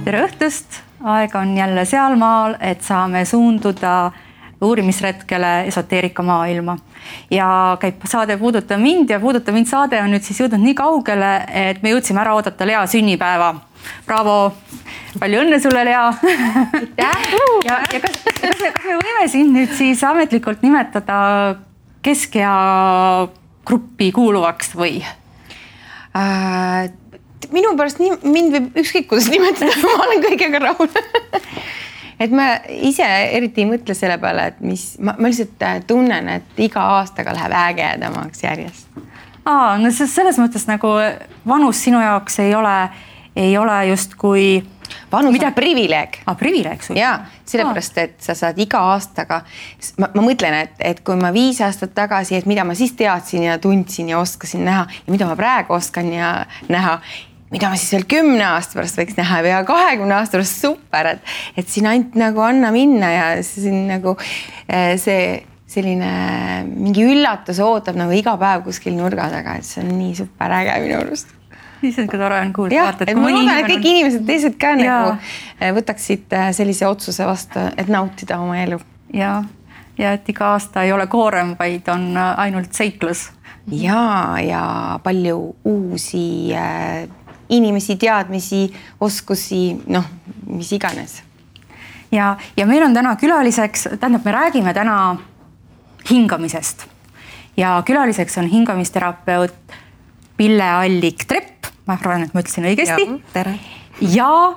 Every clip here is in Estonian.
Tere õhtust! Aeg on jälle sealmaal, et saame suunduda uurimisretkele esoteerika maailma. Ja käib saade Puuduta mind ja Puuduta mind saade on nüüd siis jõudnud nii kaugele, et me jõudsime ära oodata Lea sünnipäeva. Bravo! Palju õnne sulle, Lea! ja kas me võime sind nüüd siis ametlikult nimetada Keskea gruppi kuuluvaks või? Minu pärast mind võib ükskõik kuidas nimetada, ma olen kõigega rahul. Et ma ise eriti ei mõtle selle peale, et ma lihtsalt tunnen, et iga aastaga läheb ägedamaks järjest. No selles mõttes nagu vanus sinu jaoks ei ole just kui... Vanus on privileeg. Privileeg sul? Jaa, sellepärast, et sa saad iga aastaga... Ma mõtlen, et kui ma 5 aastat tagasi, et mida ma siis teadsin ja tundsin ja oskasin näha ja mida ma praegu oskan ja näha, mida ma siis veel 10 aasta pärast võiks näha ja 20 aasta pärast super, et siin ainult nagu anna minna ja siin nagu see selline mingi üllatus ootab nagu iga päev kuskil nurga taga, et see on nii super äge minu arust. Siis on ka tore on kuulda. Jah, et ma loodan, et kõik inimesed teised ka nagu võtaksid sellise otsuse vastu, et nautida oma elu. Ja et iga aasta ei ole koorem, vaid on ainult seiklus. Ja palju uusi inimesi, teadmisi, oskusi, mis iganes. Ja meil on täna külaliseks, tähendab, me räägime täna hingamisest. Ja külaliseks on hingamisterapeut Pille Allik-Trepp. Ma arvan, et ma ütlesin õigesti. Tere. Ja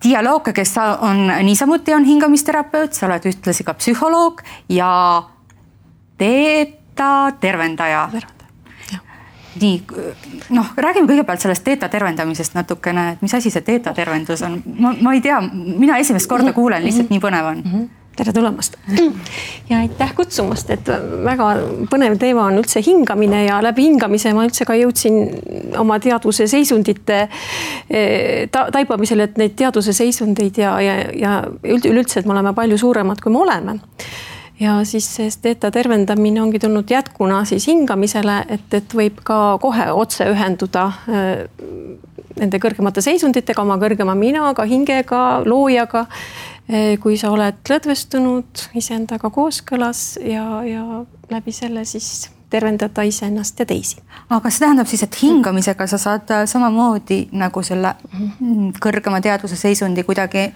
Dialooga, kes on niisamuti on hingamisterapeut, sa oled ühtlasi ka psühholoog ja teeta tervendaja. Nii, räägime kõigepealt sellest teeta tervendamisest natukene, et mis asi see teeta tervendus on? Ma ei tea, mina esimest korda kuulen, lihtsalt nii põnev on. Tere tulemast. Ja aitäh kutsumast, et väga põnev teema on üldse hingamine ja läbi hingamise ma üldse ka jõudsin oma teadvuse seisundite taipamisele, et neid teadvuse seisundeid ja üldse, et me oleme palju suuremad, kui me oleme. Ja siis teeta tervendamine ongi tulnud jätkuna siis hingamisele, et võib ka kohe otse ühenduda nende kõrgemate seisunditega, oma kõrgema minaga, hingega, loojaga, kui sa oled lõdvestunud iseendaga kooskõlas ja läbi selle siis tervendada iseennast ja teisi. Aga see tähendab siis, et hingamisega sa saad samamoodi nagu selle kõrgema teadvuse seisundi kuidagi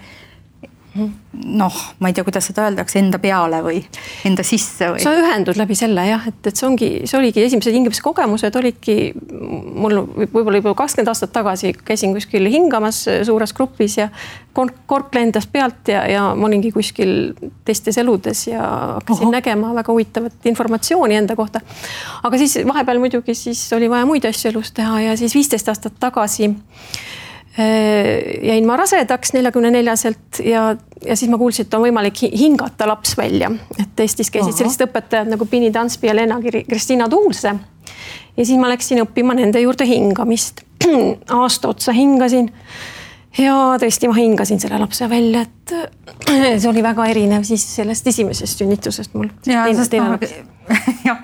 ma ei tea, kuidas seda öeldakse, enda peale või enda sisse või? Sa ühendud läbi selle, jah, et see oligi esimesed hingamise kogemused, olidki mul võib-olla juba 20 aastat tagasi käisin kuskil hingamas suures grupis ja kork lendas pealt ja ma olingi kuskil teistes eludes ja hakkasin nägema väga huvitavat informatsiooni enda kohta. Aga siis vahepeal muidugi siis oli vaja muid asju elus teha ja siis 15 aastat tagasi jäin ma rasedaks 44-selt ja siis ma kuulsin, et on võimalik hingata laps välja. Et Eestis käisid sellised õpetajad nagu Pini Tanspi ja Lena Kristina Tuulse. Ja siis ma läksin õppima nende juurde hingamist. Aasta otsa hingasin ja tõesti ma hingasin selle lapse välja, et see oli väga erinev siis sellest esimesest sünnitusest mul. Ja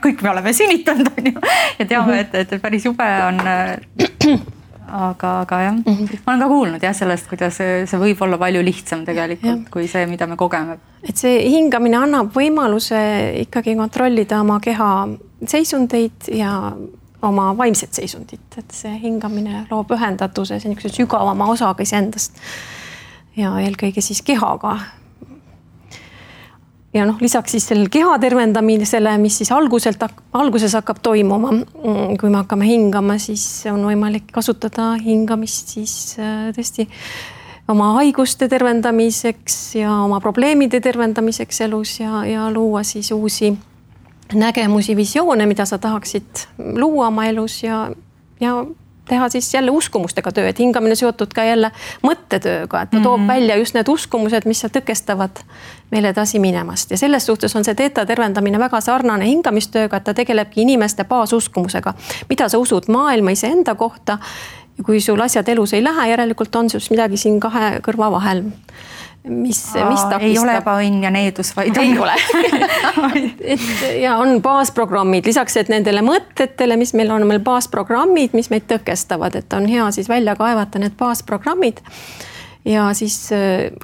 kõik me oleme sünnitanud ja teame, et päris jube on... Aga jah, ma olen ka kuulnud sellest, kuidas see võib olla palju lihtsam tegelikult kui see, mida me kogeme. Et see hingamine annab võimaluse ikkagi kontrollida oma keha seisundeid ja oma vaimset seisundit. Et see hingamine loob ühendatuse, see on sügavama osaga iseendast ja eelkõige siis kehaga. Ja lisaks siis sellel keha tervendamisele, mis siis alguses hakkab toimuma, kui me hakkame hingama, siis on võimalik kasutada hingamist siis tõesti oma haiguste tervendamiseks ja oma probleemide tervendamiseks elus ja luua siis uusi nägemusi, visioone, mida sa tahaksid luua oma elus ja teha siis jälle uskumustega töö, et hingamine seotud ka jälle mõttetööga, et ta toob välja just need uskumused, mis tõkestavad meil edasi minemast. Ja selles suhtes on see teeta tervendamine väga sarnane hingamistööga, et ta tegelebki inimeste baasuskumusega, mida sa usud maailma iseenda kohta. Ja kui sul asjad elus ei lähe, järelikult on sul midagi siin kahe kõrva vahel. mis takistab. Ei ole ebaõnn ja needus, vaid ei ole. Ja on baasprogrammid, lisaks et nendele mõtetele, mis meil on meil baasprogrammid, mis meid tõkestavad, et on hea siis välja kaevata need baasprogrammid. Ja siis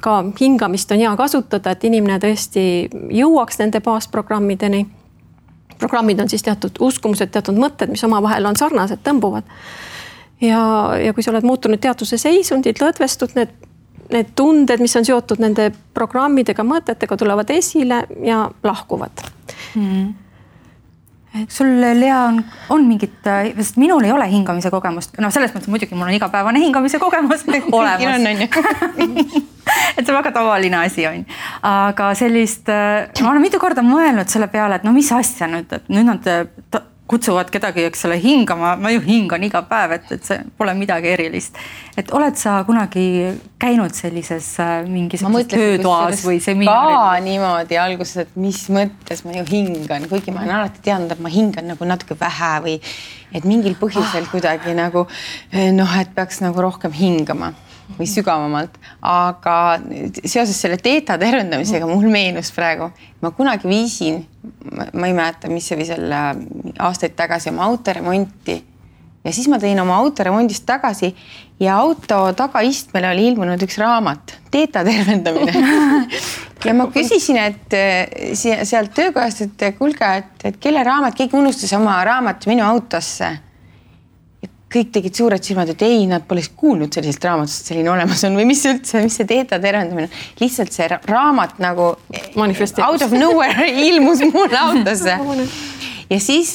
ka hingamist on hea kasutada, et inimene tõesti jõuaks nende baasprogrammideni. Programmid on siis teatud uskumused, teatud mõtted, mis omavahel on sarnased, tõmbuvad. Ja kui sa oled muutunud teadvuse seisundid, lõdvestud, need tunded, mis on seotud nende programmidega, mõtetega, tulevad esile ja lahkuvad. Sul, Lea, on mingit, sest minul ei ole hingamise kogemust. No selles mõttes muidugi mul on igapäevane hingamise kogemus olemas. Et see väga tavaline asi on. Aga sellist, ma olen mitu korda mõelnud selle peale, et no mis asja nüüd, et nüüd nad kutsuvad kedagi, eks ole, hingama. Ma ju hingan iga päev, et see pole midagi erilist. Et oled sa kunagi käinud sellises mingis töötoas või seminaaril? Ka niimoodi alguses, et mis mõttes ma ju hingan, kuigi ma olen alati teadnud, et ma hingan nagu natuke vähe või et mingil põhjusel kuidagi nagu et peaks nagu rohkem hingama või sügavamalt, aga seoses selle teeta tervendamisega mul meenus praegu, ma kunagi viisin, ma ei mäleta, mis see või selle aastaid tagasi oma autoremonti ja siis ma tõin oma autoremondist tagasi ja auto tagaistmele oli ilmunud üks raamat, teeta tervendamine. Ja ma küsisin, et sealt töökojast, et kuulge, et kelle raamat, keegi unustas oma raamat minu autosse. Kõik tegid suured silmad, et ei, nad pole kuulnud sellisest raamatust, selline olemas on või mis üldse, mis see teeta tervendamine. Lihtsalt see raamat nagu out of nowhere ilmus mulle autosse. Ja siis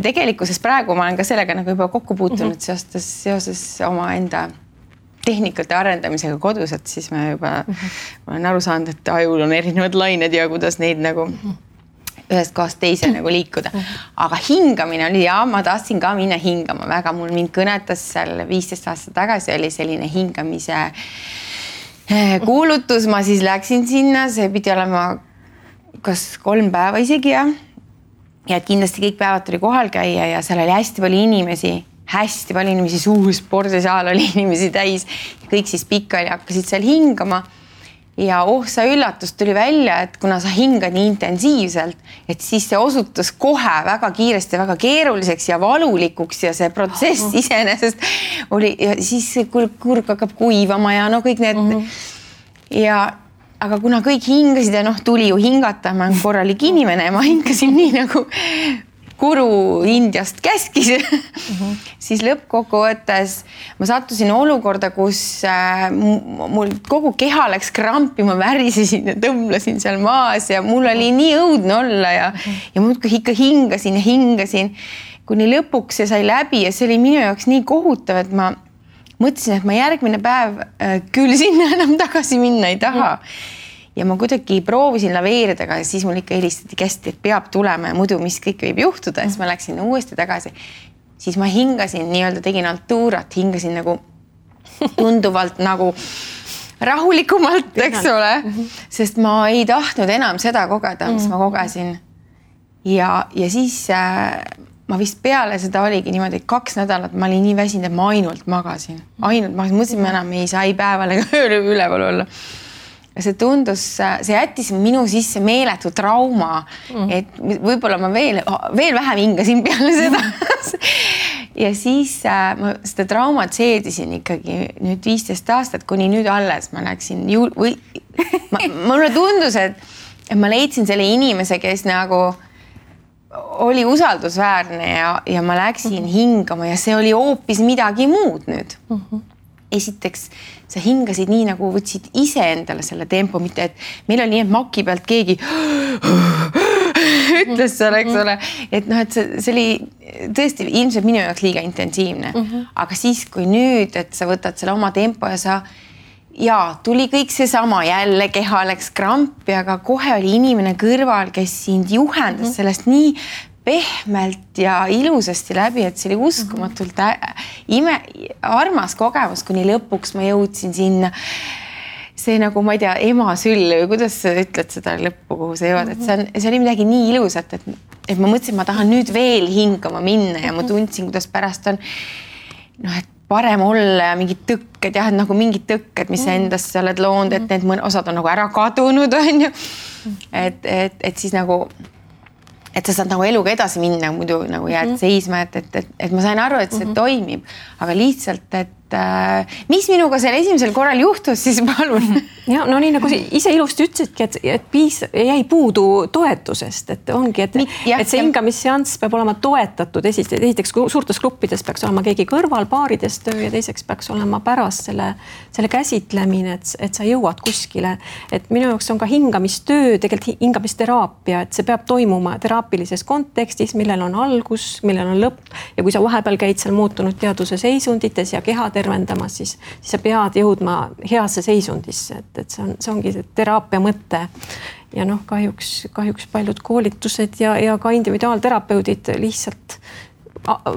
tegelikkuses praegu ma olen ka sellega nagu juba kokku puutunud seoses oma enda tehnikate arendamisega kodus, et siis ma juba olen aru saanud, et ajul on erinevad lained ja kuidas neid nagu ühest kohast teise nagu liikuda. Aga hingamine oli ja ma tahtsin ka minna hingama väga. Mul mind kõnetas seal 15 aastat tagasi oli selline hingamise kuulutus. Ma siis läksin sinna, see pidi olema kas 3 päeva isegi ja kindlasti kõik päevad tuli kohal käia ja seal oli hästi palju inimesi, suur spordisaal oli inimesi täis. Kõik siis pikali hakkasid seal hingama. Ja sa üllatus tuli välja, et kuna sa hingad nii intensiivselt, et siis see osutus kohe väga kiiresti, väga keeruliseks ja valulikuks ja see protsess iseenesest oli, ja siis kurg hakkab kuivama ja kõik need. Aga kuna kõik hingasid ja tuli ju hingata, ma olen korralik inimene ja ma hingasin nii nagu Guru Indiast käskis, siis lõppkokkuvõttes ma sattusin olukorda, kus mul kogu keha läks krampi, ma värisesin ja tõmblesin seal maas ja mul oli nii õudne olla ja muudkui ikka hingasin, kuni lõpuks see sai läbi ja see oli minu jaoks nii kohutav, et ma mõtlesin, et ma järgmine päev küll sinna enam tagasi minna ei taha. Ja ma kuidagi proovisin laveerida, aga siis mul ikka helistati kästi, et peab tulema ja muidu mis kõik võib juhtuda. Ja siis ma läksin uuesti tagasi. Siis ma hingasin, nii-öelda tegin altuurat, hingasin nagu tunduvalt nagu rahulikumalt, eks ole. Sest ma ei tahtnud enam seda kogeda, mis ma kogesin. Ja siis ma vist peale seda oligi niimoodi 2 nädalat, ma olin nii väsinud, et ma ainult magasin. Mõtlesin, ma enam ei saa ei päeval ega üleval olla. See tundus, see jättis minu sisse meeletu trauma, et võib-olla ma veel vähem hingasin peale seda. Ja siis ma seda traumat seedisin ikkagi nüüd 15 aastat, kuni nüüd alles ma läksin. Mulle tundus, et ma leidsin selle inimese, kes nagu oli usaldusväärne ja ma läksin hingama ja see oli hoopis midagi muud nüüd. Esiteks, sa hingasid nii nagu võtsid ise endale selle tempo, mitte et meil oli nii, et maki pealt keegi ütles selle, eks ole. Et et see oli tõesti ilmselt minu jaoks liiga intensiivne. Aga siis, kui nüüd, et sa võtad selle oma tempo ja tuli kõik seesama jälle, keha läks krampi, aga kohe oli inimene kõrval, kes sind juhendas sellest nii pehmelt ja ilusasti läbi, et see oli uskumatult armas kogemus, kuni lõpuks ma jõudsin sinna. See nagu, ma ei tea, ema süll või kuidas sa ütled seda lõppu, kuhu sa jõuad, et see oli midagi nii ilusat, et ma mõtlesin, ma tahan nüüd veel hingama minna ja ma tundsin, kuidas pärast on, et parem olla ja mingid tõkked, jah, nagu mingid tõkked, mis sa endasse oled loonud, et need osad on nagu ära kadunud, on ju. Et siis nagu, et sa saad nagu eluga edasi minna, muidu nagu jääd seisma, et ma sain aru, et see toimib, aga lihtsalt, et mis minuga selle esimesel korral juhtus, siis palun. Ja, no nii nagu ise ilusti ütlesidki, et jäi puudu toetusest, et ongi, et see hingamisseanss peab olema toetatud. Esiteks suurtes gruppides peaks olema keegi kõrval, paarides töö ja teiseks peaks olema pärast selle käsitlemine, et sa jõuad kuskile. Et minu jaoks on ka hingamistöö, tegelikult hingamisteraapia, et see peab toimuma teraapilises kontekstis, millel on algus, millel on lõpp ja kui sa vahepeal käid seal muutunud teaduse seisundites ja keha tervendamas, siis sa pead jõudma heasse seisundisse, et see ongi see teraapia mõte. Ja noh, kahjuks paljud koolitused ja ka individuaalterapeudid lihtsalt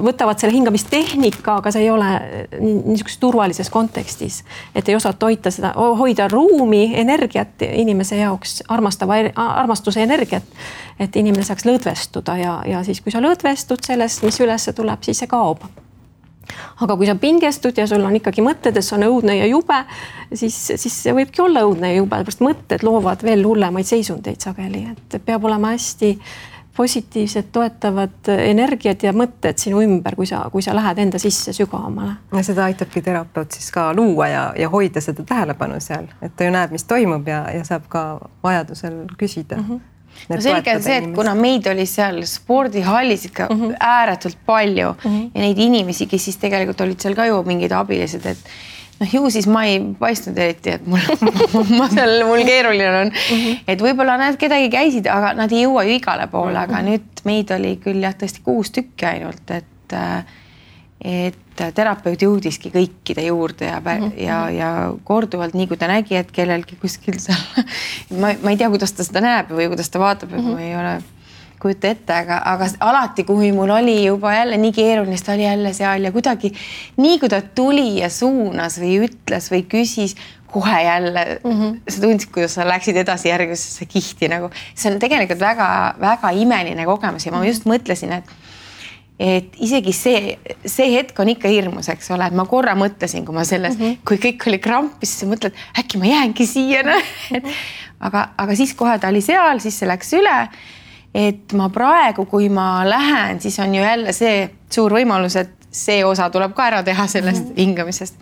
võtavad selle hingamistehnika, aga see ei ole niisuguses turvalises kontekstis, et ei osata hoida ruumi, energiat inimese jaoks, armastuse energiat, et inimene saaks lõdvestuda ja siis, kui sa lõdvestud sellest, mis üles tuleb, siis see kaob. Aga kui sa pingestud ja sul on ikkagi mõtted, et see on õudne ja jube, siis see võibki olla õudne ja jube, pärast mõtted loovad veel hullemaid seisundeid sageli, et peab olema hästi positiivsed, toetavad energiat ja mõtted sinu ümber, kui sa lähed enda sisse sügavamale. Ja seda aitabki terapeut siis ka luua ja hoida seda tähelepanu seal, et ta ju näeb, mis toimub ja saab ka vajadusel küsida. No selge on see, et kuna meid oli seal spordihallis ikka ääretult palju ja neid inimesi, kes siis tegelikult olid seal ka ju mingid abilised, et noh, ju siis ma ei paistnud eriti, et mul keeruline on, et võib-olla nad kedagi käisid, aga nad ei jõua ju igale poole, aga nüüd meid oli küll jah, tõesti 6 tükki ainult, et terapeut jõudiski kõikide juurde ja korduvalt, nii kui ta nägi, et kellelgi kuskil seal, ma ei tea, kuidas ta seda näeb või kuidas ta vaatab, et ma ei ole kujuta ette, aga alati, kui mul oli juba jälle nii keeruline, ta oli jälle seal ja kuidagi nii, kui ta tuli ja suunas või ütles või küsis, kohe jälle sa tundsid, kuidas sa läksid edasi järgmisesse kihti nagu. See on tegelikult väga imeline kogemus ja ma just mõtlesin, et isegi see hetk on ikka hirmus, eks ole, et ma korra mõtlesin, kui ma selles, kui kõik oli krampis, siis mõtled, äkki ma jäängi siia. Aga siis kohe ta oli seal, siis see läks üle, et ma praegu, kui ma lähen, siis on ju jälle see suur võimalus, et see osa tuleb ka ära teha sellest hingamisest.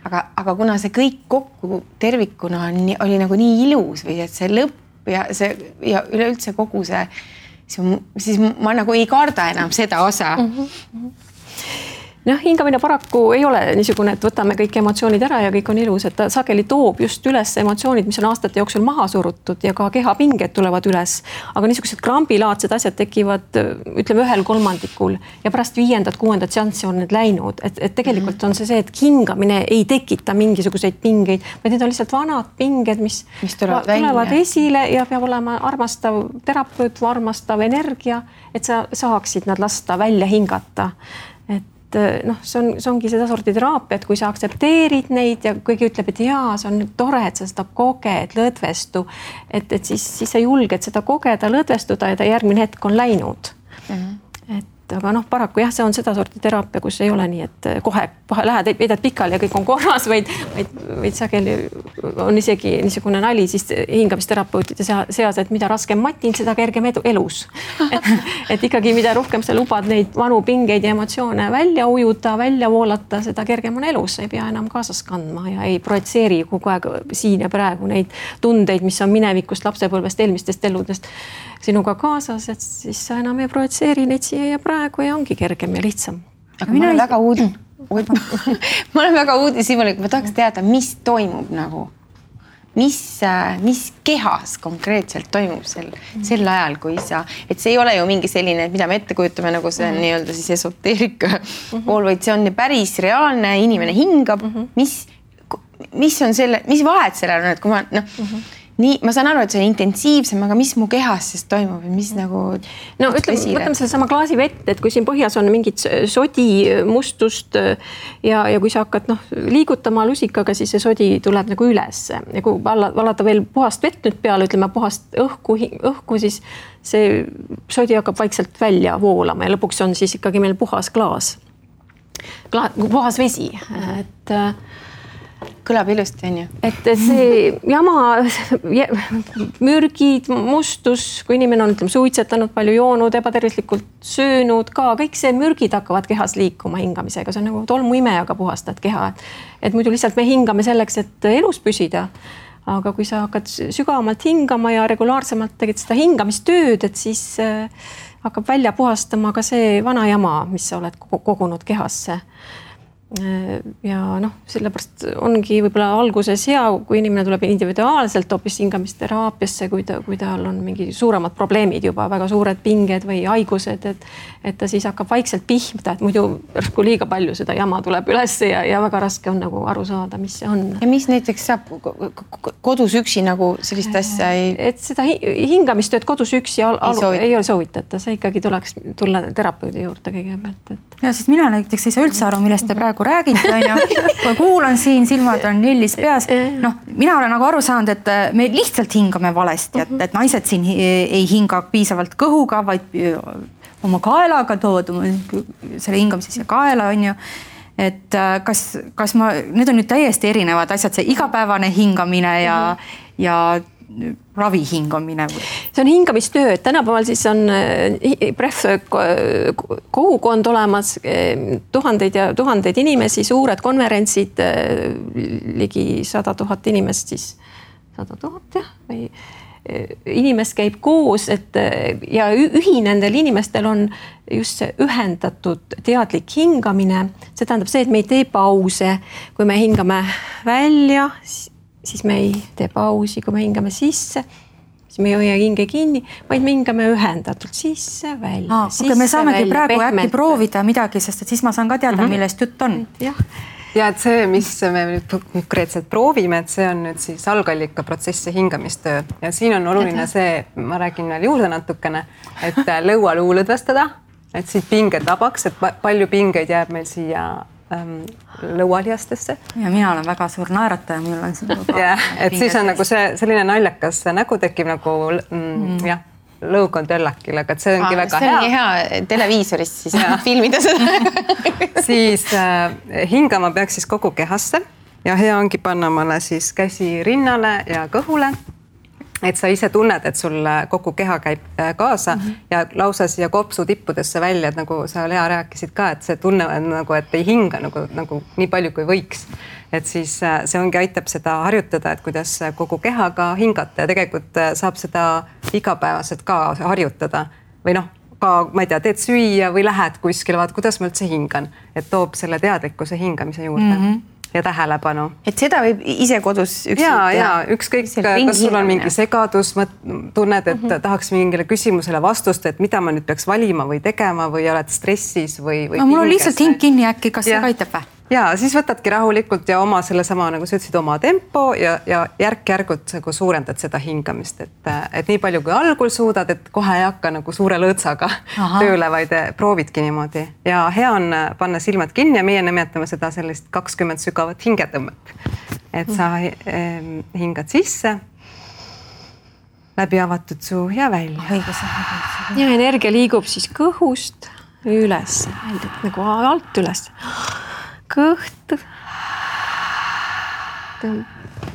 Aga kuna see kõik kokku tervikuna oli nagu nii ilus või et see lõpp ja üleüldse kogu see, siis ma nagu ei karda enam seda osa. Noh, hingamine paraku ei ole niisugune, et võtame kõik emotsioonid ära ja kõik on ilus, et ta sageli toob just üles emotsioonid, mis on aastate jooksul maha surutud ja ka kehapinged tulevad üles. Aga niisugused krambilaadsed asjad tekivad, ütleme, 1/3 ja pärast 5.-6. seanssi on need läinud. Et tegelikult on see, et hingamine ei tekita mingisuguseid pingeid, vaid need on lihtsalt vanad pinged, mis tulevad esile ja peab olema armastav terapeut või armastav energia, et sa saaksid nad lasta välja hingata. Noh, see ongi seda sorti teraapia, et kui sa aktsepteerid neid ja kõigi ütleb, et jaa, see on tore, et sa seda koged, lõdvestu, et siis sa julged seda kogeda, lõdvestuda ja ta järgmine hetk on läinud. Aga noh, paraku jah, see on seda sorti teraapia, kus ei ole nii, et kohe lähed, veedad pikali ja kõik on korras, vaid sageli on isegi niisugune nali siis hingamisterapeutide seas, et mida raskem matin, seda kergem elus. Et ikkagi mida rohkem sa lubad neid vanu pingeid ja emotsioone välja ujuda, välja voolata, seda kergem on elus, sa ei pea enam kaasas kandma ja ei projitseeri kogu aeg siin ja praegu neid tundeid, mis on minevikust, lapsepõlvest, eelmistest eludest sinuga kaasas, et siis sa enam ei projitseeri neid siia ja praegu ja ongi kergem ja lihtsam. Aga ma olen väga uudishimulik, ma tahaks teada, mis toimub nagu, mis kehas konkreetselt toimub sel ajal, kui et see ei ole ju mingi selline, mida me ette kujutame, nagu see on nii-öelda siis esoteerika pool, vaid see on päris reaalne, inimene hingab, mis on selle, mis vahet sellel on, et kui ma nii, ma saan aru, et see on intensiivsem, aga mis mu kehas siis toimub ja mis nagu... No võtame selle sama klaasi vett, et kui siin põhjas on mingit sodi, mustust ja kui sa hakkad liigutama lusikaga, siis see sodi tuleb nagu üles. Ja kui valada veel puhast vett nüüd peale, ütleme puhast õhku, siis see sodi hakkab vaikselt välja voolama ja lõpuks on siis ikkagi meil puhas klaas. puhas vesi, et kõlab ilusti, on ju. Et see jama, mürgid, mustus, kui inimene on suitsetanud, palju joonud, ebatervislikult söönud ka, kõik see mürgid hakkavad kehas liikuma hingamisega, see on nagu tolmuimejaga puhastad keha. Et muidu lihtsalt me hingame selleks, et elus püsida. Aga kui sa hakkad sügavamalt hingama ja regulaarsemalt tegid seda hingamistööd, et siis hakkab välja puhastama ka see vana jama, mis sa oled kogunud kehasse. Ja sellepärast ongi võib-olla alguses hea, kui inimene tuleb individuaalselt hoopis hingamisteraapiasse, kui tal on mingi suuremad probleemid juba, väga suured pinged või haigused, et ta siis hakkab vaikselt pihmda, et muidu järsku liiga palju seda jama tuleb üles ja väga raske on nagu aru saada, mis see on. Ja mis näiteks saab kodus üksi nagu sellist asja ei... Et seda hingamistööd kodus üksi ei ole soovitata, see ikkagi tuleks tulla terapeudi juurde kõigepealt. Ja siis mina näiteks ei saa üldse aru, millest te praegu räägite, kui kuulan siin, silmad on lillis peas. Mina olen nagu aru saanud, et me lihtsalt hingame valesti, et naised siin ei hinga piisavalt kõhuga, vaid oma kaelaga tood selle hingamise siia kaela, on ju. Et kas need on nüüd täiesti erinevad asjad, see igapäevane hingamine ja ravi hingamine? See on hingamistöö, et tänapäeval siis on kogukond olemas, tuhandeid inimesi, suured konverentsid, ligi 100 000 inimest siis, 100 000 või inimest käib koos, ja ühinendel inimestel on just see ühendatud teadlik hingamine. See tähendab see, et me ei tee pause, kui me hingame välja, siis me ei tee pausi, kui me hingame sisse, siis me ei hoia hinge kinni, vaid me hingame ühendatult sisse, välja. Me saamegi praegu äkki proovida midagi, sest et siis ma saan ka teada, millest jutt on. Ja et see, mis me nüüd konkreetselt proovime, et see on nüüd siis algallika protsessi hingamistöö. Ja siin on oluline see, ma räägin veel juurde natukene, et lõualuu lõdvestada, et siit pinged vabaks, et palju pingeid jääb meil siia lõualihastesse. Ja mina olen väga suur naerataja, mul on siin et siis on nagu see selline naljakas nägu tekib nagu lõug on töllakil, aga see ongi väga hea. See ongi hea televiisorist siis filmida seda. Siis hingama peaks siis kogu kehasse ja hea ongi panna mulle siis käsi rinnale ja kõhule. Et sa ise tunned, et sul kogu keha käib kaasa ja lausa siia kopsu tippudesse välja, et nagu sa Lea rääkisid ka, et see tunne on nagu, et ei hinga nagu nii palju kui võiks. Et siis see ongi aitab seda harjutada, et kuidas kogu kehaga hingata ja tegelikult saab seda igapäevaselt ka harjutada. Või ka, ma ei tea, teed süüa või lähed kuskile, vaat kuidas ma üldse hingan, et toob selle teadlikkuse hingamise juurde. Ja tähelepanu. Et seda võib ise kodus üksi? Ja ükskõik, kas sul on mingi segadus, tunned, et tahaks mingile küsimusele vastust, et mida ma nüüd peaks valima või tegema või oled stressis või mul on lihtsalt hing kinni äkki, kas see aitab või? Ja siis võtadki rahulikult ja oma selle sama, nagu sa ütlesid, oma tempo ja järk-järgult suurendad seda hingamist, et nii palju kui algul suudad, et kohe ei hakka nagu suure lõõtsaga tööle, vaid proovidki niimoodi. Ja hea on panna silmad kinni ja meie nimetame seda sellist 20 sügavat hingetõmmet. Et sa hingad sisse, läbi avatud suu ja välja. Ja energia liigub siis kõhust üles, nagu alt üles. Kõht.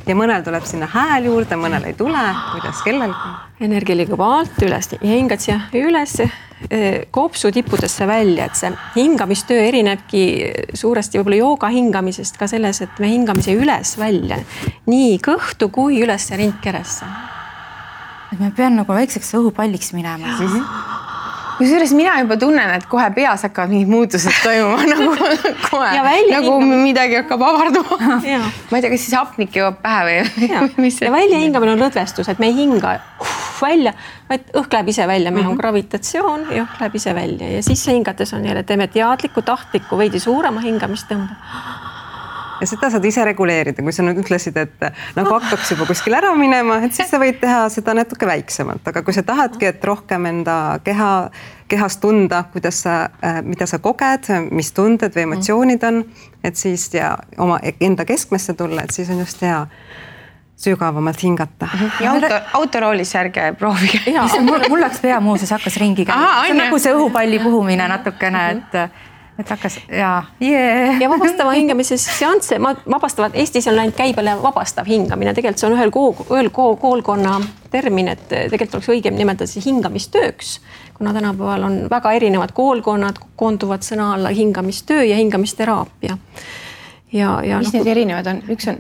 Ja mõnel tuleb sinna hääl juurde, mõnel ei tule, kuidas kellelgi. Energia liigub alt üles ja hingad siia üles kopsu tippudesse välja, et see hingamistöö erinebki suuresti võib-olla jooga hingamisest ka selles, et me hingamise üles välja nii kõhtu kui üles rindkeresse. Et me pean nagu väikseks õhupalliks minema. Kusjuures mina juba tunnen, et kohe peas hakkavad mingid muutused toimuma, nagu midagi hakkab avarduma. Ma ei tea, kas siis hapnik jõuab pähe või? Ja välja hingamine on lõdvestus, et me ei hinga välja, vaid õhk läheb ise välja, meil on gravitatsioon ja õhk läheb ise välja ja siis hingates on jälle, teeme teadliku, tahtliku, veidi suurema hingamistõmbe. Ja seda saad ise reguleerida, kui sa nüüd ütlesid, et nagu hakkaks juba kuskil ära minema, et siis sa võid teha seda natuke väiksemalt, aga kui sa tahadki, et rohkem enda kehast tunda, mida sa koged, mis tunded või emotsioonid on, et siis ja oma enda keskmesse tulla, et siis on just hea sügavamalt hingata. Ja autoroolis ärge proovige. Mul läks pea muuseas hakkas ringi käima. See on nagu see õhupalli puhumine natukene, et hakkas ja vabastava hingamise seansse vabastavad, Eestis on läinud käibele vabastav hingamine, tegelikult see on ühel koolkonna termin, et tegelikult oleks õigem nimetada see hingamistööks, kuna tänapäeval on väga erinevad koolkonnad, koonduvad sõna alla hingamistöö ja hingamisteraapia. Mis need erinevad on? Üks on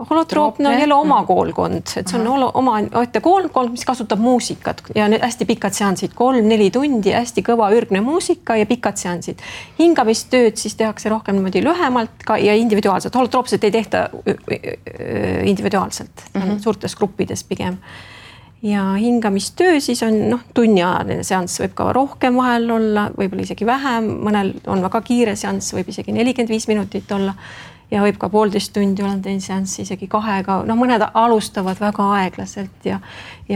holotroopne on jälle oma koolkond, et see on oma koolkond, mis kasutab muusikat ja need hästi pikad seansid, 3-4 tundi, hästi kõva ürgne muusika ja pikad seansid. Hingamistööd siis tehakse rohkem niimoodi lühemalt ja individuaalselt. Holotroopselt ei tehta individuaalselt, suurtes gruppides pigem. Ja hingamistöö siis on tunniajaline seanss, võib ka rohkem vahel olla, võib-olla isegi vähem, mõnel on väga kiire seanss, võib isegi 45 minutit olla. Ja võib ka 1,5 tundi olla teine seanss isegi 2, mõned alustavad väga aeglaselt ja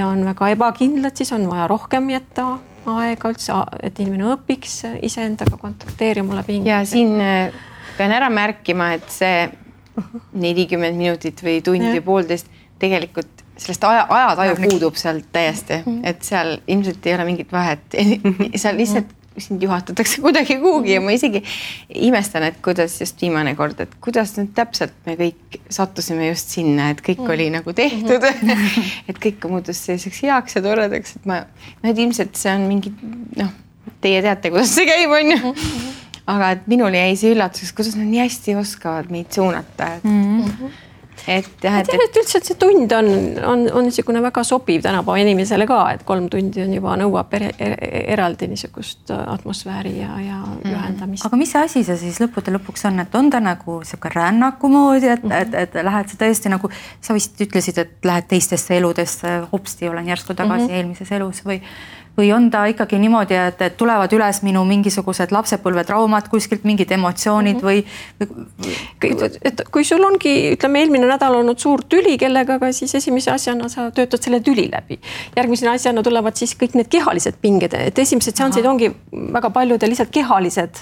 on väga ebakindlad, siis on vaja rohkem jätta aega üldse, et inimene õpiks iseendaga kontakteerima läbi hingamist. Ja siin pean ära märkima, et see 40 minutit või tund või 1,5 tegelikult sellest ajataju puudub sealt täiesti, et seal ilmselt ei ole mingit vahet, seal lihtsalt sind juhatatakse kuidagi kuhugi ja ma isegi imestan, et kuidas just viimane kord, et kuidas nüüd täpselt me kõik sattusime just sinna, et kõik oli nagu tehtud, et kõik muutus selliseks heaks ja toredaks, et et ilmselt see on mingi, teie teate, kuidas see käib, on ju. Aga et minul jäi see üllatuseks, kuidas nad nii hästi oskavad meid suunata, et üldse, et see tund on niisugune väga sobiv tänapäeva inimesele ka, et 3 tundi on juba nõuab eraldi niisugust atmosfääri ja ühendamist. Aga mis asi see siis lõpuks on, et on ta nagu siuke rännaku moodi, et lähed sa tõesti nagu, sa vist ütlesid, et lähed teistesse eludesse, hopsti olen järsku tagasi eelmises elus või on ta ikkagi niimoodi, et tulevad üles minu mingisugused lapsepõlvetraumad, kuskilt mingid emotsioonid või... Et kui sul ongi, ütleme, eelmine nädal olnud suur tüli kellega, siis esimese asjana sa töötad selle tüli läbi. Järgmise asjana tulevad siis kõik need kehalised pinged, et esimesed seansid ongi väga paljudel lihtsalt kehalised,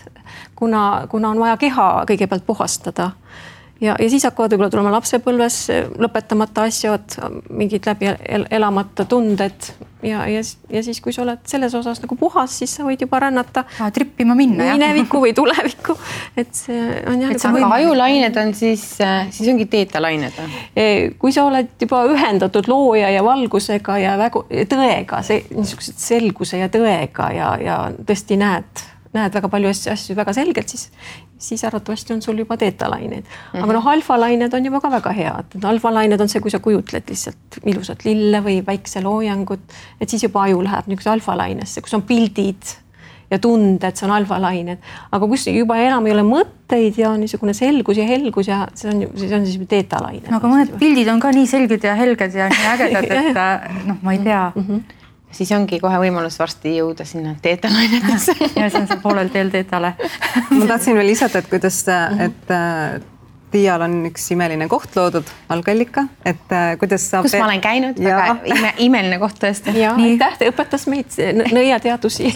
kuna on vaja keha kõigepealt puhastada. Ja siis hakkavad võib-olla tulema lapsepõlves lõpetamata asjad, mingid läbi elamata tunded ja siis, kui sa oled selles osas nagu puhas, siis sa võid juba rännata trippima minna minevikku või tulevikku. Et see on aga ajulained on siis ongi teetalained. Kui sa oled juba ühendatud looja ja valgusega ja tõega, niisugused selguse ja tõega ja tõesti näed väga palju asju väga selgelt, siis arvatavasti on sul juba teetalained. Aga alfalained on juba ka väga head. Alfalained on see, kui sa kujutled lihtsalt ilusat lille või päikseloojangut, et siis juba aju läheb niisuguse alfalainesse, kus on pildid ja tunded, see on alfalained. Aga kus juba enam ei ole mõtteid ja niisugune selgus ja helgus ja see on siis teetalained. Aga mõned pildid on ka nii selged ja helged ja nii ägedad, et ma ei tea. Siis ongi kohe võimalus varsti jõuda sinna teetalainetesse. Ja see on see poolel teel teetale. Ma tahtsin veel lisada, et kuidas, et Tiial on üks imeline koht loodud, algallika, et kuidas saab... Kus ma olen käinud, väga imeline koht tõesti. Ja, aitäh, õpetas meid nõiateadusi.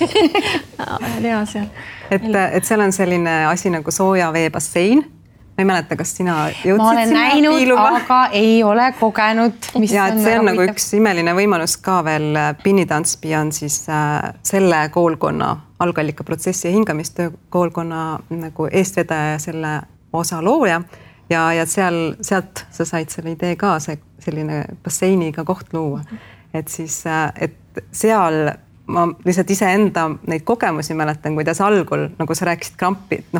Lea seal. Et seal on selline asi nagu sooja veebassein. Ma ei mäleta, kas sina jõudsid ma olen sinna näinud, piiluma? Aga ei ole kogenud. Ja, et see on nagu üks imeline võimalus ka veel. Pinnitantspi on siis selle koolkonna, algallika protsessi ja hingamistöö koolkonna nagu eestvedaja ja selle osa looja. Ja sealt sa said selle idee ka, selline basseiniga koht luua. Et siis, et seal... Ma lihtsalt iseenda neid kogemusi mäletan, kuidas algul, nagu sa rääkisid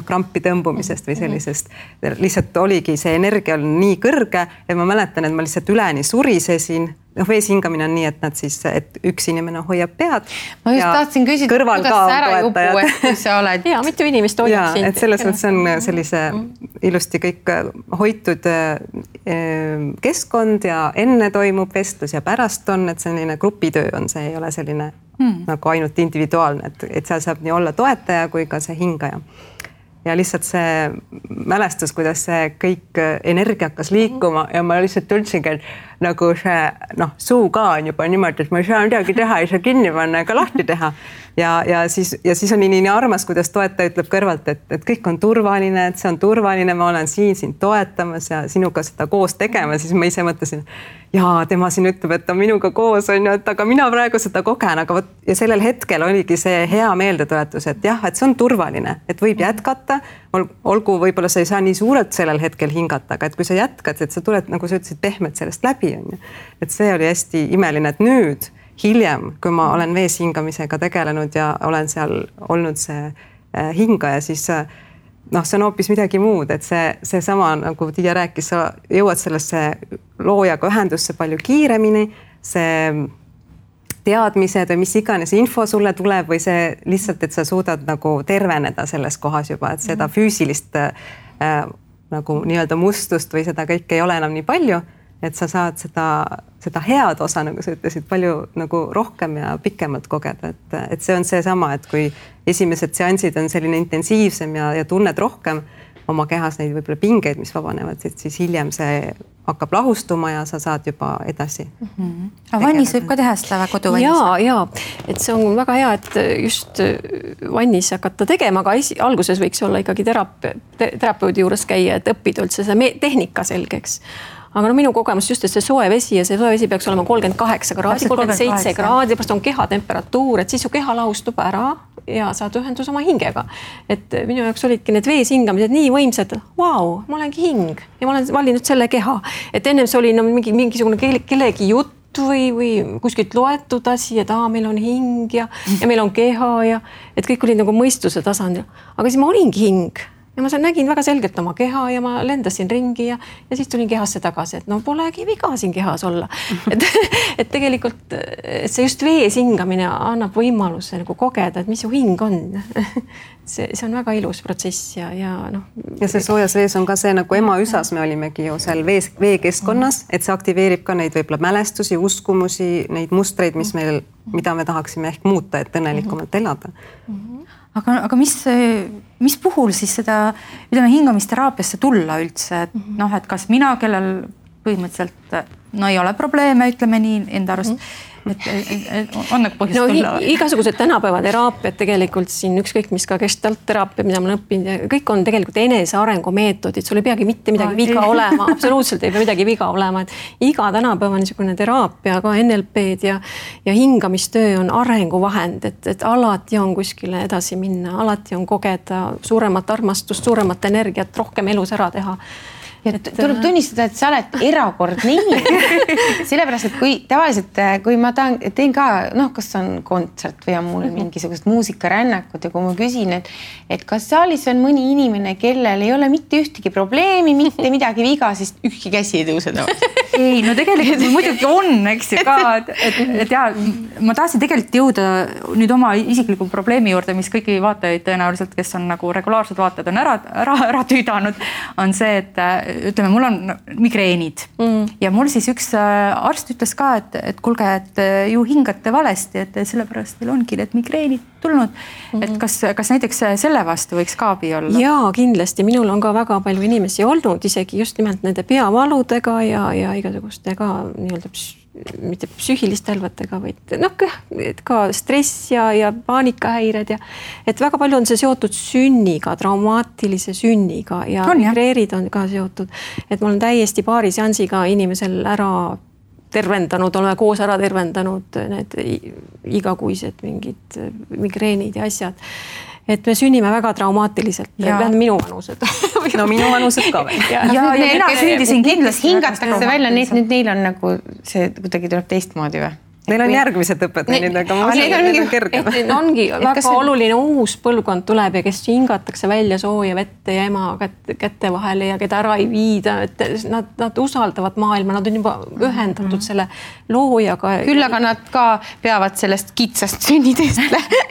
krampi tõmbumisest või sellisest, lihtsalt oligi see energia nii kõrge, et ma mäletan, et ma lihtsalt üleni surisesin. Vees hingamine on nii, et nad siis, et üks inimene hoiab pead. Ma just tahtsin küsida, kuidas ära jupu, et kui sa oled... Ja, mitu inimest hoiab sind. Et selles mõttes on sellise ilusti kõik hoitud keskkond ja enne toimub vestlus ja pärast on, et selline grupitöö on, see ei ole selline nagu ainult individuaalne, et seal saab nii olla toetaja kui ka see hingaja. Ja lihtsalt see mälestus, kuidas see kõik energia hakkas liikuma ja ma lihtsalt tundsingi, et nagu see suu ka on juba niimoodi, et ma ei saa midagi teha, ei saa kinni panna ega lahti teha. Ja siis on nii armas, kuidas toetaja ütleb kõrvalt, et kõik on turvaline, et see on turvaline, ma olen siin sind toetamas ja sinuga seda koos tegema, siis ma ise mõtlesin, ja tema siin ütleb, et ta minuga koos on ju, et aga mina praegu seda kogen, aga vot ja sellel hetkel oligi see hea meeldetuletus, et jah, et see on turvaline, et võib jätkata, olgu võib-olla sa ei saa nii suurelt sellel hetkel hingata, aga et kui sa jätkad, et sa tuled, nagu sa ütlesid, pehmelt sellest läbi on ju. Et see oli hästi imeline, et nüüd hiljem, kui ma olen vees hingamisega tegelenud ja olen seal olnud see hingaja, siis see on hoopis midagi muud, et see sama, nagu Tiia rääkis, sa jõuad sellesse loojaga ühendusse palju kiiremini, see teadmised või mis iganes info sulle tuleb või see lihtsalt, et sa suudad nagu terveneda selles kohas juba, et seda füüsilist nagu nii-öelda mustust või seda kõike ei ole enam nii palju, et sa saad seda head osa, nagu sa ütlesid, palju nagu rohkem ja pikemalt kogeda, et see on seesama, et kui esimesed seansid on selline intensiivsem ja tunned rohkem oma kehas neid võib-olla pingeid, mis vabanevad, siis hiljem see hakkab lahustuma ja sa saad juba edasi. Aga vannis võib ka teha seda koduvannis? Ja, et see on väga hea, et just vannis hakata tegema, aga alguses võiks olla ikkagi terapeudi juures käia, et õppida üldse see tehnika selgeks. Aga minu kogemus just, et see soe vesi ja see soe vesi peaks olema 38 kraadi, 37 kraadi, pärast on kehatemperatuur, et siis su keha lahustub ära ja saad ühendus oma hingega. Et minu jaoks olidki need vees hingamised nii võimsad, vau, ma olengi hing ja ma olen valinud selle keha. Et ennem see oli mingisugune kellegi jutt või kuskilt loetud asi, et meil on hing ja meil on keha ja et kõik oli nagu mõistuse tasandil. Aga siis ma olingi hing. Ja ma nägin väga selgelt oma keha ja ma lendasin ringi ja siis tulin kehasse tagasi, et polegi viga siin kehas olla. Et tegelikult et see just vees hingamine annab võimaluse nagu kogeda, et mis su hing on. See on väga ilus protsess ja Ja see soojas vees on ka see nagu Emaüsas me olimegi ju seal veekeskkonnas, et see aktiveerib ka neid võib-olla mälestusi, uskumusi, neid mustreid, mida me tahaksime ehk muuta, et õnnelikumalt elada. Aga mis puhul siis seda, hingamisteraapiasse tulla üldse, et kas mina, kellel põhimõtteliselt ei ole probleeme, ütleme nii enda arust, et on nagu põhjust tulla? Igasugused tänapäeva teraapiad tegelikult siin, ükskõik mis ka gestaltteraapia, mida ma olen õppinud, kõik on tegelikult enesearengu meetodid, sul ei peagi mitte midagi viga olema, absoluutselt ei pea midagi viga olema, et iga tänapäeva niisugune teraapia, ka NLP-d ja hingamistöö on arenguvahend, et alati on kuskile edasi minna, alati on kogeda suuremat armastust, suuremat energiat, rohkem elus ära teha. Tuleb tunnistada, et sa oled erakordne inimene. Sellepärast, et kui tavaliselt, kui ma teen ka, kas on kontsert või on mul mingisugust muusikarännakut ja kui ma küsin, et kas saalis on mõni inimene, kellel ei ole mitte ühtegi probleemi, mitte midagi viga, siis ükski käsi ei tõuse tavaliselt. Ei, tegelikult muidugi on, eks ju ka, et ma tahtsin tegelikult jõuda nüüd oma isikliku probleemi juurde, mis kõiki vaatajaid tõenäoliselt, kes on nagu regulaarsed vaatajad, on ära tüüdanud, on see, et ütleme, mul on migreenid ja mul siis üks arst ütles ka, et kuulge, et ju hingate valesti, et sellepärast teil ongi need migreenid tulnud. Et kas näiteks selle vastu võiks ka abi olla? Jaa, kindlasti. Minul on ka väga palju inimesi olnud, isegi just nimelt nende peavaludega ja igasugustega nii-öelda mitte psüühiliste hälvetega, vaid ka stress ja paanikahäired ja et väga palju on see seotud sünniga, traumaatilise sünniga ja migreerid on ka seotud, et ma olen täiesti paari seansiga inimesel ära tervendanud, oleme koos ära tervendanud need igakuised mingid migreenid ja asjad. Et me sünnime väga traumaatiliselt, minu vanused. Minu vanused ka veel. Ja mina sündisin kindlasti. Hingatakse välja, neil on nagu see kuidagi tuleb teistmoodi või? Neil on järgmised õpetajad, aga ma usun, et need on kergem. Ongi väga oluline uus põlvkond tuleb ja kes hingatakse välja sooja vette ja ema kätte vahele ja keda ära ei viida, et nad usaldavad maailma, nad on juba ühendatud selle loojaga. Küll aga nad ka peavad sellest kitsast sünniteest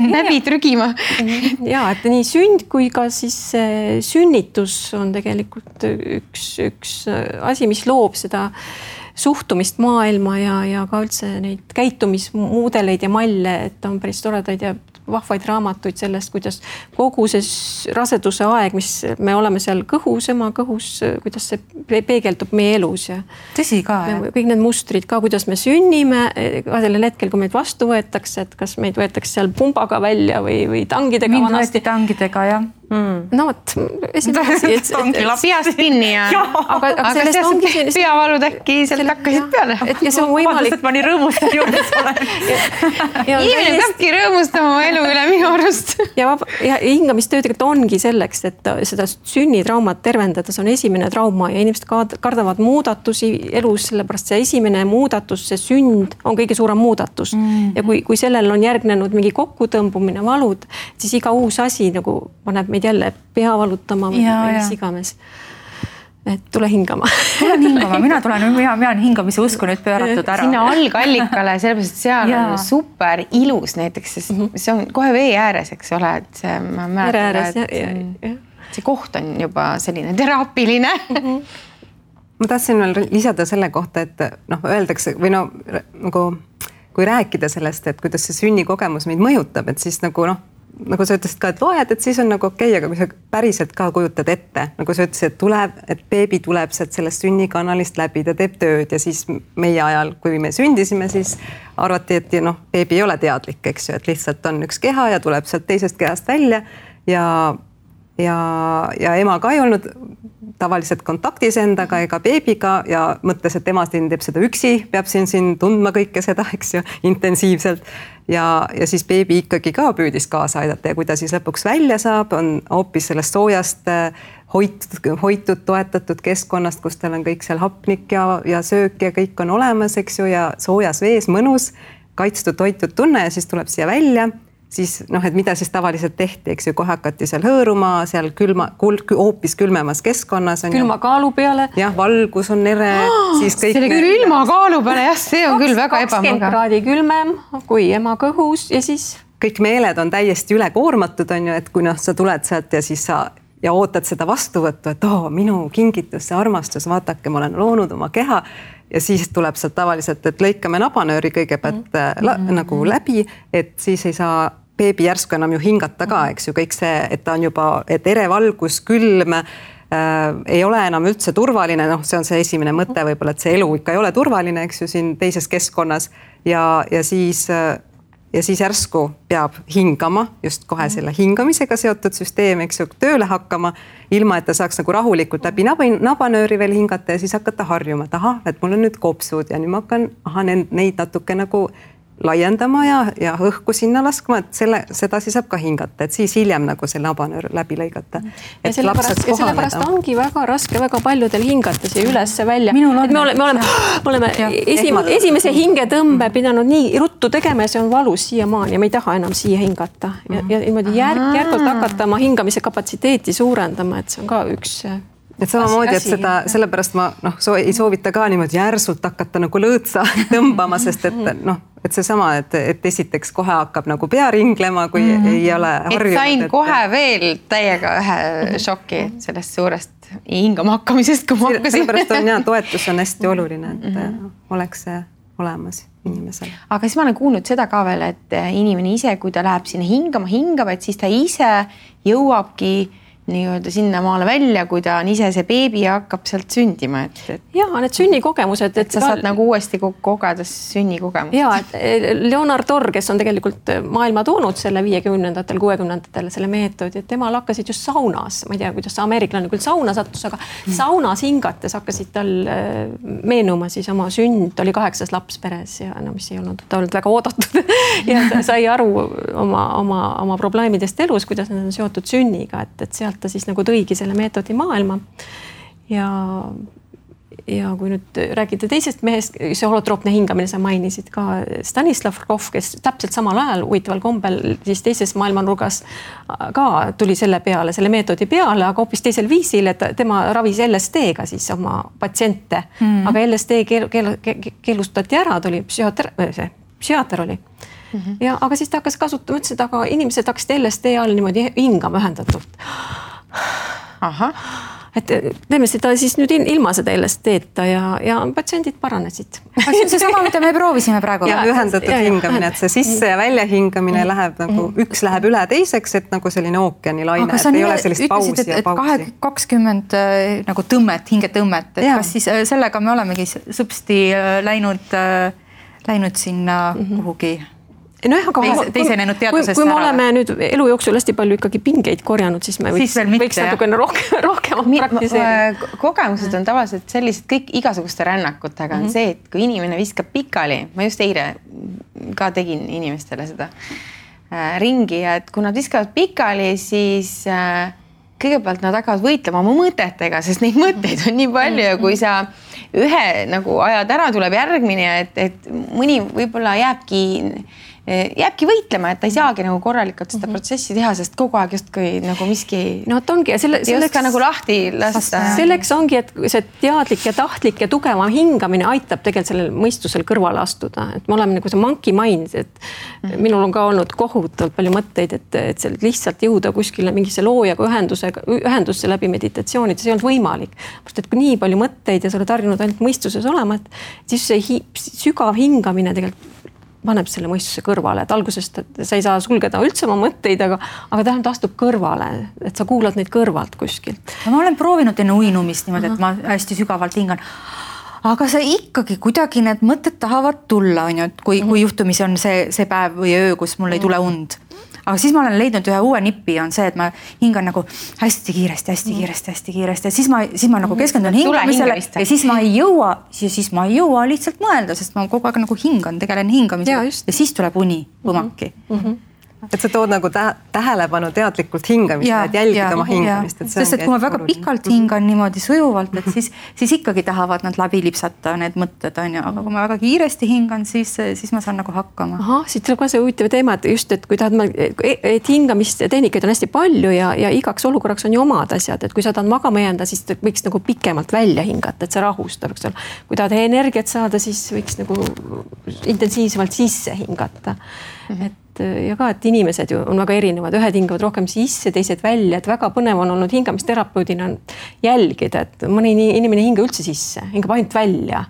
läbi trügima. Ja, et nii sünd kui ka siis sünnitus on tegelikult üks asi, mis loob seda suhtumist maailma ja ka üldse neid käitumismudeleid ja malle, et on päris toredaid ja vahvaid raamatuid sellest, kuidas kogu see raseduse aeg, mis me oleme seal kõhus, ema kõhus, kuidas see peegeldub meie elus. Ja tõsi ka, jah. Kõik need mustrid ka, kuidas me sünnime, ka sellel hetkel, kui meid vastu võetakse, et kas meid võetakse seal pumbaga välja või tangidega vanasti. Mind võeti tangidega, jah. no vot, esimene asi, peast kinni ja aga sellest ongi selline peavalud äkki sealt hakkasid peale. Ja see on võimalik. et ma nii rõõmustan juures olen. Inimene peabki rõõmustama oma elu üle minu arust. Ja hingamistöö tegelikult ongi selleks, et seda sünnitraumat tervendada, see on esimene trauma ja inimesed kardavad muudatusi elus, sellepärast see esimene muudatus, see sünd on kõige suurem muudatus. Ja kui sellel on järgnenud mingi kokkutõmbumine, valud, siis iga uus asi nagu paneb meid jälle pea valutama või mis iganes. Et tule hingama. Tulen hingama, mina olen hingamise usku nüüd pööratud ära. Sinna algallikale, sellepärast, et seal on super ilus näiteks, sest see on kohe vee ääres, eks ole, et see, ma mäletan, et see koht on juba selline teraapiline. Ma tahtsin veel lisada selle kohta, et öeldakse või nagu kui rääkida sellest, et kuidas see sünnikogemus meid mõjutab, et siis nagu sa ütlesid ka, et loed, et siis on nagu okei, aga kui sa päriselt ka kujutad ette, nagu sa ütlesid, et beebi tuleb sealt sellest sünnikanalist läbi, ta teeb tööd ja siis meie ajal, kui me sündisime, siis arvati, et beebi ei ole teadlik, eks ju, et lihtsalt on üks keha ja tuleb sealt teisest kehast välja ja ema ka ei olnud tavaliselt kontaktis endaga ega beebiga ja mõtles, et ema siin teeb seda üksi, peab siin tundma kõike seda, eks ju, intensiivselt. Ja siis beebi ikkagi ka püüdis kaasa aidata ja kui ta siis lõpuks välja saab, on hoopis sellest soojast hoitud, toetatud keskkonnast, kus tal on kõik seal hapnik ja söök ja kõik on olemas, eks ju, ja soojas vees mõnus, kaitstud, hoitud tunne ja siis tuleb siia välja. Siis et mida siis tavaliselt tehti, eks ju, kohe hakati seal hõõruma, seal hoopis külmemas keskkonnas. Külma kaalu peale. Jah, valgus on ere. See oli küll ilma kaalu peale, jah, see on küll väga ebamugav. 20 kraadi külmem kui ema kõhus ja siis... Kõik meeled on täiesti ülekoormatud, on ju, et kui sa tuled sealt ja siis sa ootad seda vastuvõttu, et minu kingitus, see armastus, vaatake, ma olen loonud oma keha. Ja siis tuleb sealt tavaliselt, et lõikame nabanööri kõigepealt nagu läbi, et siis ei saa beebi järsku enam ju hingata ka, eks ju, kõik see, et ta on juba, et ere valgus, külm, ei ole enam üldse turvaline, see on see esimene mõte võib-olla, et see elu ikka ei ole turvaline, eks ju, siin teises keskkonnas ja siis järsku peab hingama, just kohe selle hingamisega seotud süsteem, eks ju, tööle hakkama, ilma et ta saaks nagu rahulikult läbi nabanööri veel hingata ja siis hakata harjuma, et mul on nüüd kopsud ja nüüd ma hakkan neid natuke nagu laiendama ja õhku sinna laskma, et seda siis saab ka hingata, et siis hiljem nagu see nabanöör läbi lõigata. Ja sellepärast ongi väga raske väga paljudel hingata siia ülesse välja. Me oleme esimese hingetõmbe pidanud nii ruttu tegema ja see on valus siiamaani ja me ei taha enam siia hingata. Ja niimoodi järgult hakata oma hingamise kapatsiteeti suurendama, et see on ka üks... Et samamoodi, et seda, sellepärast ma ei soovita ka niimoodi järsult hakata nagu lõõtsa tõmbama, sest et see sama, et esiteks kohe hakkab nagu pea ringlema, kui ei ole harjunud. Et sain kohe veel täiega ühe šoki sellest suurest hingama hakkamisest, kui ma hakkasin. Sellepärast on toetus on hästi oluline, et oleks see olemas inimesel. Aga siis ma olen kuulnud seda ka veel, et inimene ise, kui ta läheb sinna hingama, et siis ta ise jõuabki nii-öelda sinna maale välja, kui ta on ise see beebi ja hakkab sealt sündima. Jaa, need sünnikogemused. Et sa saad nagu uuesti kogeda sünnikogemust. Jaa, et Leonard Orr, kes on tegelikult maailma toonud selle 50-ndatel, 60-ndatel selle meetodi, et temal hakkasid just saunas, ma ei tea, kuidas ameeriklane küll sauna sattus, aga saunas hingates hakkasid tal meenuma siis oma sünd, oli 8 laps peres ja mis ei olnud, ta olnud väga oodatud ja ta sai aru oma probleemidest elus, kuidas need on seotud sünniga, et sealt ta siis nagu tõigi selle meetodi maailma ja kui nüüd räägida teisest mehest, see holotroopne hingamine, sa mainisid ka Stanislav Grof, kes täpselt samal ajal huvitaval kombel siis teises maailmanurgas ka tuli selle meetodi peale, aga hoopis teisel viisil, et tema ravis LSD-ga siis oma patsiente, aga LSD keelustati ära, tuli psühhiaater oli. Ja, aga siis ta hakkas kasutama, ütles, et aga inimesed hakkasid LSD all niimoodi hingama ühendatult. Aha. Et teeme seda siis nüüd ilma seda LSD-ta ja patsiendid paranesid. See on see sama, mida me proovisime praegu. Ja ühendatud hingamine, et see sisse ja välja hingamine läheb nagu, üks läheb üle teiseks, et nagu selline ookeani laine, et ei ole sellist pausi ja pausi. 20 nagu tõmmet, hingetõmmet, et kas siis sellega me olemegi sõpsti läinud sinna kuhugi teisenenud teadusest kui me oleme nüüd elu jooksul hästi palju ikkagi pingeid korjanud, siis me võiks natukene rohkem praktiseerida. Kogemused on tavaliselt sellised kõik igasuguste rännakutega on see, et kui inimene viskab pikali, ma just eile ka tegin inimestele seda ringi, et kui nad viskavad pikali, siis kõigepealt nad hakkavad võitlema oma mõtetega, sest neid mõtteid on nii palju ja kui sa ühe nagu ajad ära, tuleb järgmine, et mõni võib-olla jääbki võitlema, et ta ei saagi nagu korralikult seda protsessi teha, sest kogu aeg justkui nagu miski no, ongi, ja selleks nagu lahti lasta. Selleks ongi, et see teadlik ja tahtlik ja tugevam hingamine aitab tegelikult sellel mõistusel kõrvale astuda. Et me oleme nagu see monkey mind, et minul on ka olnud kohutavalt palju mõtteid, et lihtsalt jõuda kuskile mingisse loojaga ühendusse läbi meditatsioonid, see ei olnud võimalik. Et kui nii palju mõtteid ja sa oled harjunud ainult mõistuses olema, et siis see sügav hingamine tegelikult paneb selle mõistuse kõrvale, et algusest sa ei saa sulgeda üldse oma mõtteid, aga tähendab, ta astub kõrvale, et sa kuulad neid kõrvalt kuskilt. Ma olen proovinud enne uinumist niimoodi, et ma hästi sügavalt hingan. Aga see ikkagi kuidagi need mõtted tahavad tulla, on ju, et kui juhtumisi on see päev või öö, kus mul ei tule und. Aga siis ma olen leidnud ühe uue nipi, on see, et ma hingan nagu hästi kiiresti ja siis ma nagu keskendun hingamisele ja siis ma ei jõua lihtsalt mõelda, sest ma kogu aeg nagu tegelen hingamisele ja siis tuleb uni põmaki. Et sa tood nagu tähelepanu teadlikult hingamist, et jälgida oma hingamist. Sest et kui ma väga pikalt hingan niimoodi sujuvalt, et siis ikkagi tahavad nad läbi lipsata need mõtted, on ju, aga kui ma väga kiiresti hingan, siis ma saan nagu hakkama. Siit tuleb ka see huvitav teema, et just, et kui et hingamist tehnikaid on hästi palju ja igaks olukorraks on ju omad asjad, et kui sa tahad magama jääda, siis võiks nagu pikemalt välja hingata, et see rahustab. Kui tahad energiat saada, siis võiks nagu intensiivsemalt sisse hingata. Ja ka, et inimesed ju on väga erinevad, ühed hingavad rohkem sisse, teised välja, et väga põnev on olnud hingamisterapeudina jälgida, et mõni inimene hinga üldse sisse, hingab ainult välja.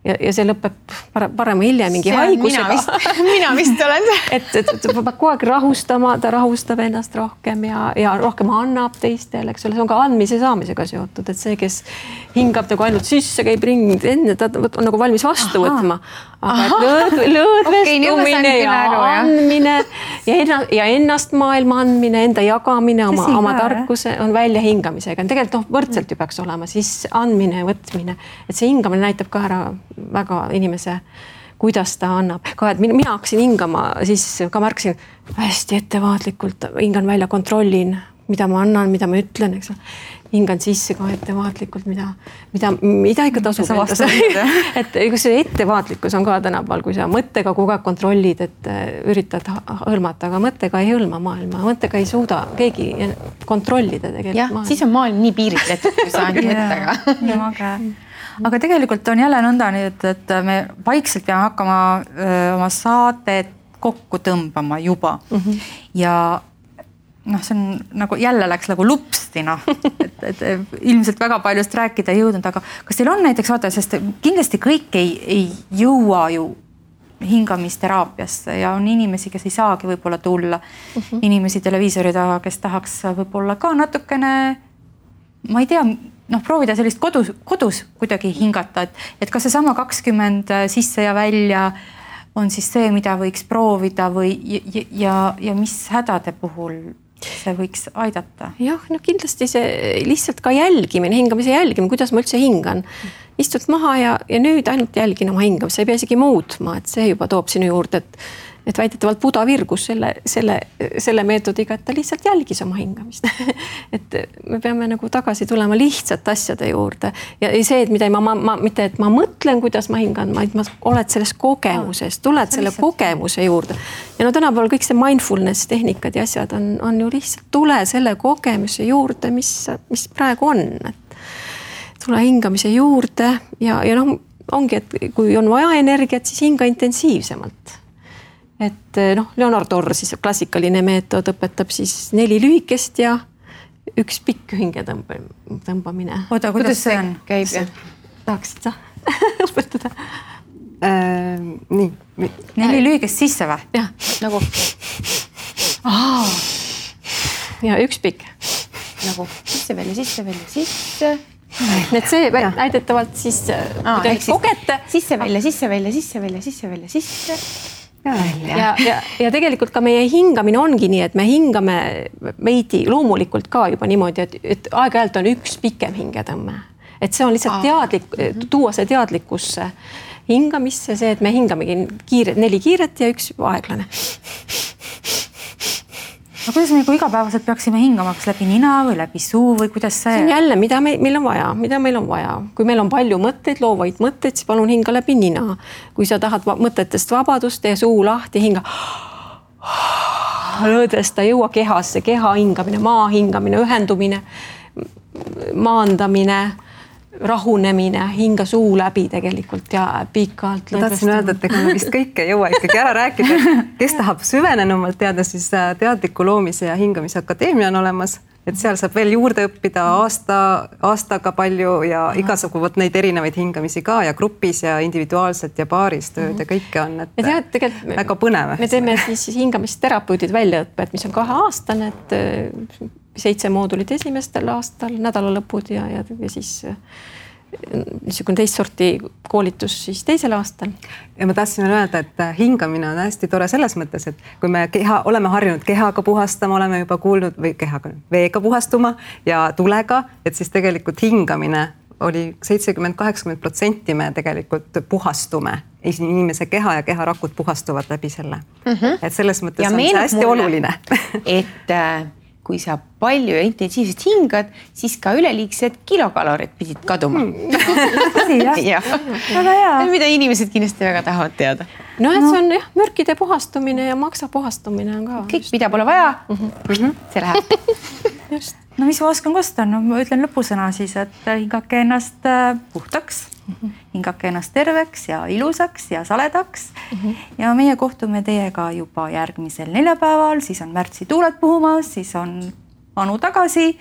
Ja see lõpeb parema hiljem mingi haigusega. Mina vist olen see. Et peab kogu aeg rahustama, ta rahustab ennast rohkem ja rohkem annab teistele, eks ole, see on ka andmise saamisega seotud, et see, kes hingab nagu ainult sisse, käib ringi, enne ta on nagu valmis vastu võtma. Aga lõõdvestumine ja andmine ja ennast maailma andmine, enda jagamine, oma tarkuse on välja hingamisega. Tegelikult võrdselt ju peaks olema, siis andmine ja võtmine. Et see hingamine näitab ka ära väga inimese, kuidas ta annab. Ka, et mina hakkasin hingama, siis ka märkasin hästi ettevaatlikult, hingan välja, kontrollin, mida ma annan, mida ma ütlen, eks. Hingan sisse ka ettevaatlikult, mida ikka tasub endast. Et see ettevaatlikkus on ka tänapäeval, kui sa mõttega kogu aeg kontrollid, et üritad hõlmata, aga mõttega ei hõlma maailma. Mõttega ei suuda keegi kontrollida tegelikult maailma. Siis on maailm nii piiritletud, kui sa ainult mõttega. Aga tegelikult on jälle nõnda nüüd, et me vaikselt peame hakkama oma saadet kokku tõmbama juba. Ja see on nagu jälle läks nagu lupsti, et ilmselt väga paljust rääkida ei jõudnud, aga kas teil on näiteks vaata, sest kindlasti kõik ei jõua ju hingamisteraapiasse ja on inimesi, kes ei saagi võib-olla tulla, inimesi televiisori taga, kes tahaks võib-olla ka natukene, ma ei tea, proovida sellist kodus kuidagi hingata, et kas see sama 20 sisse ja välja on siis see, mida võiks proovida või ja mis hädade puhul see võiks aidata? Jah, kindlasti see lihtsalt ka jälgimine, hingamise jälgimine, kuidas ma üldse hingan. Istud maha ja nüüd ainult jälgin oma hingamist, sa ei pea isegi muutma, et see juba toob sinu juurde, et väidetavalt Buda virgus selle meetodiga, et ta lihtsalt jälgis oma hingamist. Et me peame nagu tagasi tulema lihtsalt asjade juurde. Ja see, et mitte et ma mõtlen, kuidas ma hingan, vaid ma oled selles kogemuses, tuled selle kogemuse juurde. Ja tänapäeval kõik see mindfulness tehnikad ja asjad on ju lihtsalt tule selle kogemuse juurde, mis praegu on. Tule hingamise juurde ja ongi, et kui on vaja energiat, siis hinga intensiivsemalt. Et Leonard Orr, siis klassikaline meetod õpetab siis 4 lühikest ja 1 pikk hinge tõmbamine. Oota, kuidas see on? Käib? Tahaksid sa õpetada? Nii. 4 lühikest sisse või? Jah, nagu. Ja 1 pikk. Nagu sisse, sisse. Need see väidetavalt siis kogete. Sisse, välja. ja tegelikult ka meie hingamine ongi nii, et me hingame veidi loomulikult ka juba niimoodi, et aeg-ajalt on üks pikem hingetõmme. Et see on lihtsalt teadlik, tuua see teadlikkusse hingamisse, see, et me hingamegi 4 kiiret ja 1 aeglane. No kuidas me igapäevaselt peaksime hingama, kas läbi nina või läbi suu või kuidas see? See on jälle, mida meil on vaja. Kui meil on palju mõtteid, loovaid mõtteid, siis palun hinga läbi nina. Kui sa tahad mõtetest vabadust, tee suu lahti, hinga. Lõõdesta, jõua kehasse, keha hingamine, maa hingamine, ühendumine, maandamine, rahunemine, hinga suu läbi tegelikult ja pikalt. Ma tahtsin öelda, et ega me vist kõike ei jõua ikkagi ära rääkida. Kes tahab süvenenumalt teada, siis Teadliku loomise ja hingamise akadeemia on olemas. Et seal saab veel juurde õppida aastaga palju ja igasugused neid erinevaid hingamisi ka ja grupis ja individuaalselt ja paaris tööd ja kõike on. Et väga põnev. Me teeme siis hingamisterapeudid väljaõpped, mis on 2-aastane, et 7 moodulit esimestel aastal, nädalalõpud ja siis niisugune teist sorti koolitus siis teisel aastal. Ja ma tahtsin öelda, et hingamine on hästi tore selles mõttes, et kui me oleme harjunud kehaga puhastama, oleme juba kuulnud või veega puhastuma ja tulega, et siis tegelikult hingamine oli 70-80% me tegelikult puhastume. Inimese keha ja keharakud puhastuvad läbi selle. Et selles mõttes on see hästi oluline. Et kui sa palju ja intensiivselt hingad, siis ka üleliigsed kilokalorid pidid kaduma. Väga hea. Mida inimesed kindlasti väga tahavad teada. No, et see on mürkide puhastumine ja maksa puhastumine on ka. Kõik, mida pole vaja, see läheb. Just. No mis ma oskan kosta? No ma ütlen lõpusõna siis, et hingake ennast puhtaks, hingake ennast terveks ja ilusaks ja saledaks. Ja meie kohtume teiega juba järgmisel neljapäeval, siis on märtsi tuuled puhumas, siis on Anu tagasi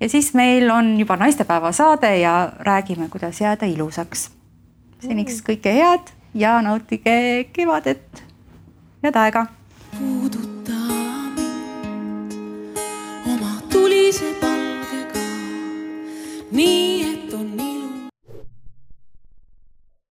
ja siis meil on juba naistepäeva saade ja räägime, kuidas jääda ilusaks. Seniks kõike head ja nautige kevadet ja aega. Puuduta mind oma tulise palgega, nii et on nii